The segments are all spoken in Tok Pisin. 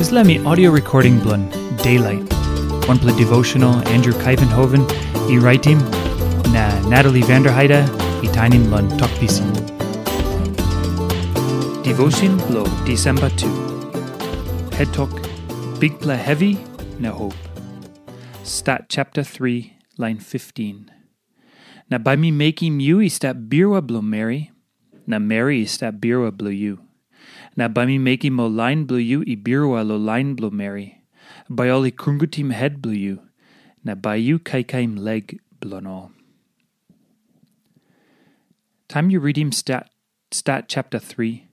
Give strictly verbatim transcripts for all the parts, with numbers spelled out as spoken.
Dispela mi audio recording bilong Daylight, wanpela devotional Andrew Kaivenhoven i raitim, na Natalie Vanderheide i tainim long Tok Pisin. Devotion bilong Disemba tu. Het tok, Bikpela Hevi na Hope. Stat chapter three, line fifteen. Na bai mi mekim yu i stap birua bilong meri, na meri i stap birua bilong yu. Na bai mi mekim ol lain bilong yu i birua long lain bilong meri. Bai ol i krungutim het bilong yu, na bai yu kaikaim lek bilong ol. Taim yu ritim Stat, Stat chapter three,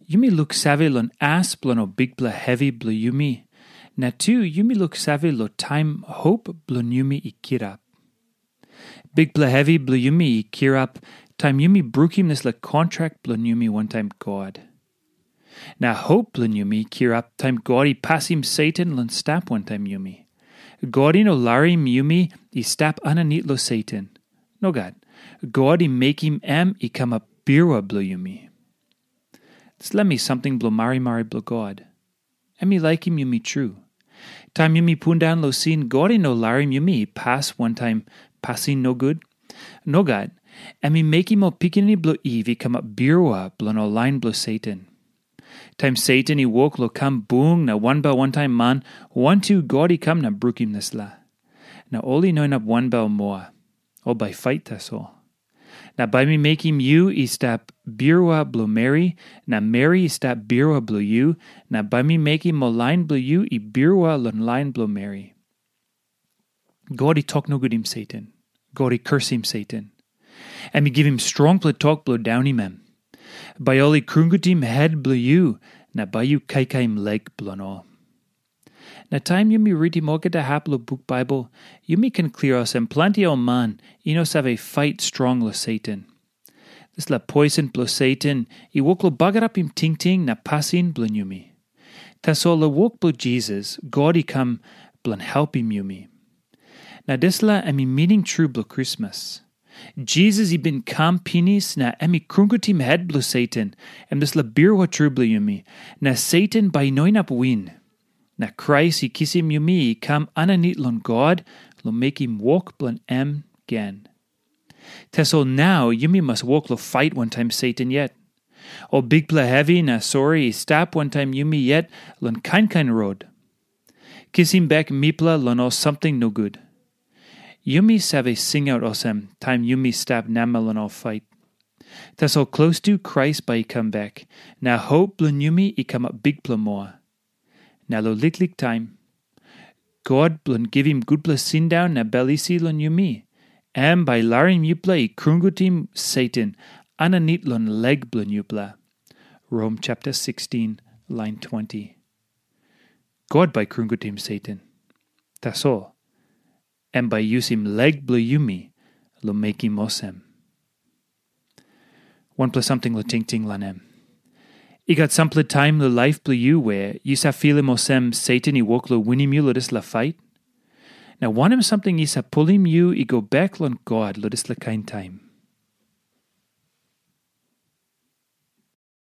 yumi luksave long as bilong ol bikpela hevi bilong yumi, na tu yumi luksave long taim hop bilong yumi i kirap. Bikpela hevi bilong yumi i kirap taim yumi brukim dispela kontrak bilong yumi wantaim God. Na hop bilong yumi i kirap taim God i pasim Satan long stap wantaim yumi. God i no larim yumi i stap aninit long Satan. Nogat. God i mekim em i kamap birua bilong yumi. Dispela mi samting bilong marimari bilong God. Em i laikim yumi tru. Taim yumi pundaun long sin, God i no larim yumi i pas wantaim pasin nogut. Nogat, em i mekim ol pikinini bilong Iv i kamap birua bilong ol lain bilong Satan. Taim Satan i wok long kam bung na wanbel wantaim man, wantu God i kam na brukim dispela. Na ol i no inap wanbel moa. Ol bai fait tasol. Na bai mi mekim yu i stap birua bilong meri, na meri i stap birua bilong yu, na bai mi mekim ol lain bilong yu i birua long lain bilong meri. God i tok nogutim Satan. God i kursim Satan. Em i givim strongpela tok bilong daunim em. Bai ol i krungutim het bilong yu, na bai yu kaikaim lek bilong ol. Na taim yumi ritim olgeta hap long buk Baibel, yumi ken klia olsem planti ol man i no save fait strong long Satan. Dispela poisen bilong Satan i wok long bagarapim tingting na pasin bilong yumi. Tasol long wok bilong Jisas, God i kam bilong helpim yumi. Na dispela em i mining tru bilong Krismas. Jisas i bin kam pinis na em i krungutim het bilong Satan, em dispela birua tru bilong yumi, na Satan bai i no inap win. Na Krais i kisim yumi i kam aninit long God long mekim wok bilong em gen. Tasol nau yumi mas wok long fait wantaim Satan yet. Ol bikpela hevi na sori i stap wantaim yumi yet long kain kain rot. Kisim bek mipela long ol samting nogut. Yumi save singaut olsem taim yumi stap namel long ol fait. Tasol klostu Krais bai i kam bek, na hop bilong yumi i kamap bikpela moa. Na long liklik taim, God bilong givim gutpela sindaun na bel isi long yumi, em bai larim yupela i krungutim Satan aninit long lek bilong yupela. Rom chapter sixteen, line twenty. God bai krungutim Satan. Tasol, em bai yusim lek bilong yumi long mekim olsem. Wanpela samting long tingting long em. I gat sampela taim long laip bilong yu we yu save filim olsem Satan i wok long winim yu long dispela fait? Na wanem samting i save pulim yu i go bek long God long dispela kain taim?